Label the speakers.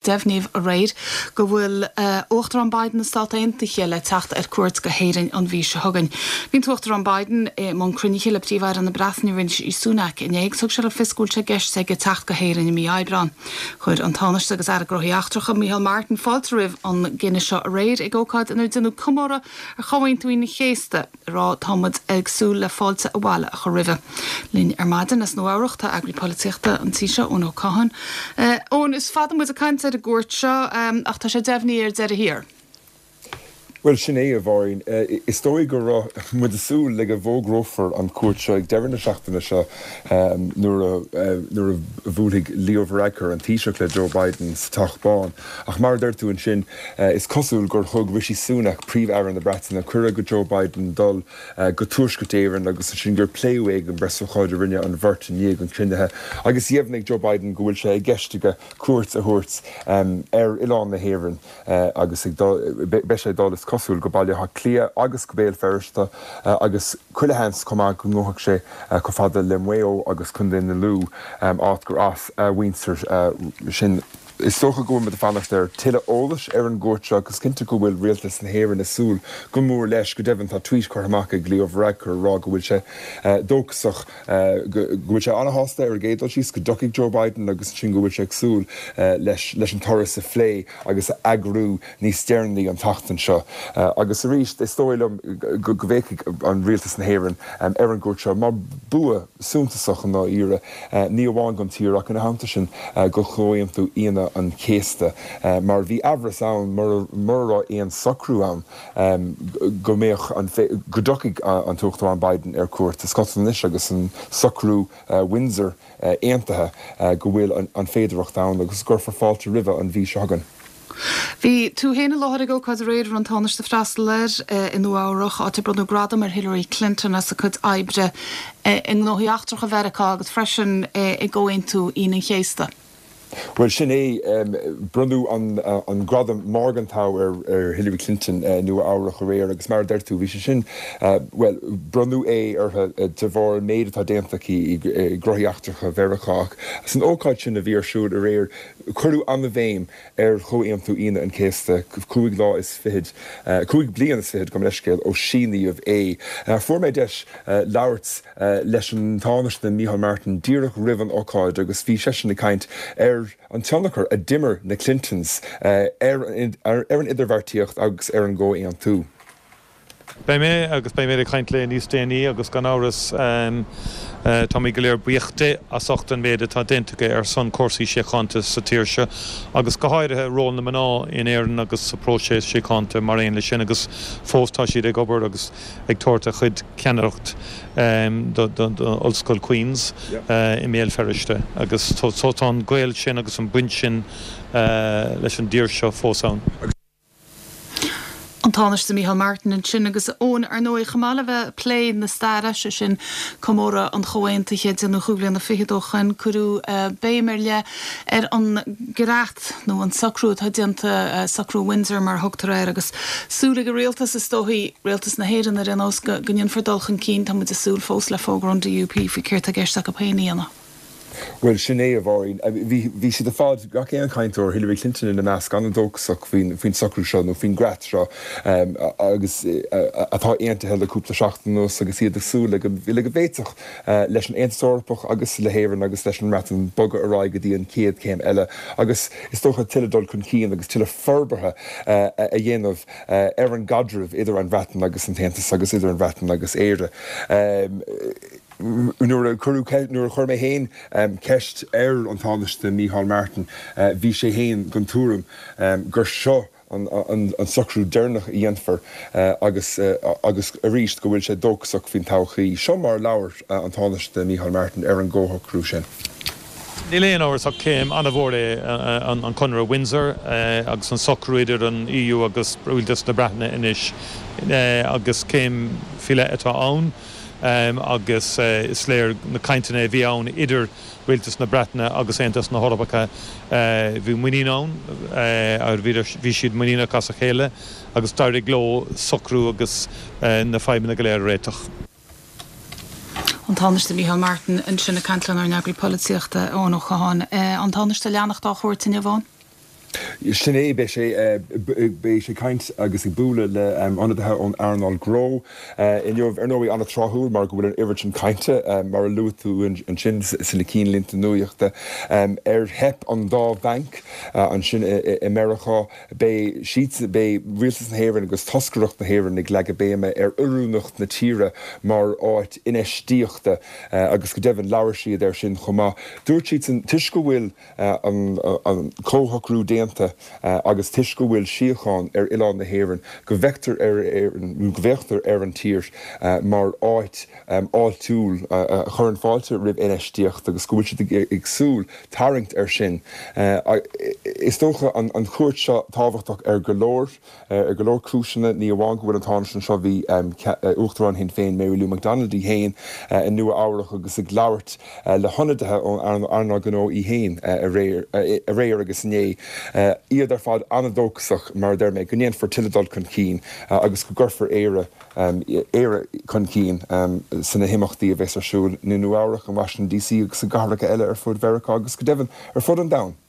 Speaker 1: Deimhníodh aréir go bhfuil Uachtarán Biden na Stát Aontaithe le teacht ar cuairt go hÉirinn an mhí seo chugainn. Bhí an tUachtarán Biden i mbun cruinnithe le Príomh-Aire na Breataine Rishi Sunak inné agus thug sé le fios go bhfuil sé i gceist aige teacht go hÉirinn i mí Aibreáin. Chuir an Tánaiste agus Aire Gnóthaí Eachtracha Micheál Martin fáilte roimh an gcinneadh seo aréir ag ócáid inar deineadh comóradh ar Chomhaontú Aoine an Chéasta. ag rá tá muid ag súil le fáilte abhaile a chur roimhe. Linn ar maidin as Nua Eabhrach tá eagraí polaitíochta an tí seo, Eoin Ó Catháin. Eoin, is fada muid ag caint ar an gcuairt seo ach tá sé deimhnithe ar deireadh thiar.
Speaker 2: Bhuel, sin é, a Mháirín. Is dóigh go raibh muid ag súil le go bhfógrófar an chuairt seo ag deireadh na seachtaine seo nuair a nuair a bhuailfidh Leo Varadkar, an Taoiseach, le Joe Biden sa Teach Bán. Ach mar a deir tú ansin, Is cosúil gur thug Rishi Sunak, Príomh-Aire na Breataine, cuireadh go Joe Biden dul go Tuaisceart Éireann agus ansin gur pléadh é ag an bpreasócáid a rinne an bheirt i ndiaidh an chruinnithe agus dheimhnigh Joe Biden go bhfuil sé i gceist aige cuairt a thabhairt ar oileán na hÉireann agus ag dul, beidh sé ag dul is cosúil go Baile Átha Cliath agus go Béal Feirste agus chuile sheans chomh maith go ngabhfaidh sé chomh fada le Maigh Eo agus Contae na Lú, áit gur as a mhuintir sin. Is dócha go bhfuil muid ag fanacht ar tuilleadh eolais ar an gcuairt seo agus cinnte go bhfuil Rialtas na hÉireann ag súil go mór leis. Go deimhin, tá tweet curtha amach ag Leo Varadkar ag rá go bhfuil sé dóchasach, go bhfuil sé an-shásta ar an gcéad dul síos go dtiocfaidh Joe Biden agus ansin go bhfuil sé ag súil leis leis an turas a phlé agus a eagrú níos deireanaí an tseachtain seo. Agus arís, is dóigh liom go bhféachfaidh an Rialtas na hÉireann ar an gcuairt seo mar bua suntasach i ndáiríre. ní amháin don tír ach ina theannta sin do Chomhaontú Aoine an Chéasta, mar bhí aimhreas ann mura raibh aon socrú ann go mbeadh an, go dtiocfaidh an tUachtarán Biden ar cuairt. Is cosúil anois agus an socrú Windsor aontaithe go bhfuil an féidearthacht ann agus go gcuirfear fáilte roimhe an mhí seo chugainn.
Speaker 1: Bhí tú féin i láthair ag ócáid aréir a raibh an Tánaiste ag freastal air i Nua Eabhrach, áit ar bronnadh gradam ar Hillary Clinton as a cuid oibre i ngnóthaí eachtracha Mheiriceá agus freisin i gComhaontú Aoine an Chéasta.
Speaker 2: Bhuel, sin é. Bronnadh an gradam Morgenthau ar Hillary Clinton i Nua Eabhrach aréir agus mar a deir tú, bhí sé sin, bhuel, bronnadh é uirthi de bharr an méid atá déanta aici i ngnóthaí eachtracha Mheiriceá ach san ócáid sin a bhí ar siúl aréir, Cuireadh an-bhéim ar Chomhaontú Aoine an Chéasta, 5 lá is fichead, 5 bliain is fichead, gabh mo leithscéal, ó síníodh é. Fuair mé deis labhairt leis an Tánaiste Micheál Martin díreach roimh an ócáid agus bhí seisean ag caint ar an tionchar a d'imir na Clintons ar an idirbheartaíocht agus ar an gcomhaontú.
Speaker 3: Beidh mé, agus beidh mé ag caint léi níos déanaí agus gan amhras táimid go léir buíoch di as ucht an méid atá déanta aici ar son cúrsaí síochánta sa tír seo agus go háirithe ról na mná in Éirinn agus sa phróiseas síochánta mar aon leis sin agus fós tá siad ag obair agus ag tabhairt a chuid ceannaireacht do Ollscoil Queens i mBéal Feirste agus so tá an gaol sin agus an baint sin leis an dtír seo fós ann.
Speaker 1: An Tánaiste Micheál Martin ansin agus Eoin, ar ndóigh, chomh maith le bheith ag plé na staire, sé sin comóradh an Chomhaontaithe, déanamh chúig bhliana fichead ó shoin, cuireadh béim ar leith ar an gcreat nó an socrú atá déanta, socrú Windsor mar a thugtar air, agus súil ag an rialtas, is dóichí, rialtas na hÉireann ar aon nós, go ndéanfar dul chun cinn. Tá muid ag súil fós le fógra ón DUP faoi céard tá i gceist acu féin a dhéanamh.
Speaker 2: Bhuel, sin é, a Mháirín. Bhí, bhí siad ar fad, gach aon chainteoir, Hillary Clinton ina measc, an-dóchasach faoin, faoin socrú seo nó faoin gcreat seo agus atá aontaithe le cúpla seachtain anuas agus iad ag súil le go, le go bhféadfadh leis an Aontas Eorpach agus le hÉirinn agus leis an mBreatain bogadh ar aghaidh go dtí an chéad chéim eile agus is dócha tuilleadh dul chun cinn agus tuilleadh forbartha a dhéanamh ar an gcaidreamh idir an Bhreatain agus an tAontas agus idir an Bhreatain agus Éire. Nuair a cuireadh, nuair a chuir mé féin ceist ar an Tánaiste Micheál Martin, bhí sé féin den tuairim gur seo an socrú deireanach a dhéanfar agus agus arís go bhfuil sé dóchasach faoin todhchaí. Seo mar a labhair an Tánaiste Micheál Martin ar an gcomhshocrú sin.
Speaker 3: Níl aon amhras ach céim an-mhór é an Conradh Windsor agus an socrú idir an EU agus Rialtas na Breataine anois agus céim faoi leith atá ann. agus is léir na cainteanna a bhí ann idir Rialtas na Breataine agus Aontas na hEorpa, bhí muinín ann, bhí siad muiníneach as a chéile agus d'éirigh leo socrú agus na fadhbanna go léir a réiteach.
Speaker 1: An Tánaiste Micheál Martin ansin ag caint lenár n-eagraí polaitíochta, Eoin Ó Catháin. An Tánaiste ag leanacht dá chuairt inniu, Eoin?
Speaker 2: Sin é, beidh sé, beidh sé ag caint agus ag bualadh le ionadaithe ón earnáil gnó inniu. Ar ndóigh, an-tráthúil mar go bhfuil an oiread sin cainte, mar a luaigh tú ansin sna cinnlínte nuachta, ar theip an dá bhanc ansin i Meiriceá. Beidh siad, beidh Rialtas na hÉireann agus toscaireacht na hÉireann ag leagadh béime ar oiriúnacht na tíre mar áit infheistíochta agus go deimhin labhair siad air sin chomh maith. Dúirt siadsan, toisc go bhfuil an comhshocrú déanta agus toisc go bhfuil síocháin ar oileán na hÉireann, go bhfeictear ar Éirinn, nó go bhféachtar ar an tír mar áit fháiltiúil a chuireann fáilte roimh infheistíocht agus go bhfuil siad ag súil tarraingt air sin. Is dócha an chuairt seo tábhachtach ar go leor. Ar go leor cúiseanna, ní amháin go bhfuil an Tánaiste anseo, bhí Uachtarán Shinn Féin Mary Lou McDonald í féin i Nua Eabhrac agus ag labhairt le hionadaithe ón earnáil gnó í féin aréir agus inné. Iad ar fad an-dóchasach, mar a deir mé, go ndéanfar tuilleadh dul chun cinn agus go gcuirfear Éire Éire chun cinn sna himeachtaí a bheas ar siúl i Nua Eabhrac, in Washington DC agus i gcathracha eile ar fud Mheiriceá agus go deimhin ar fud an domhain.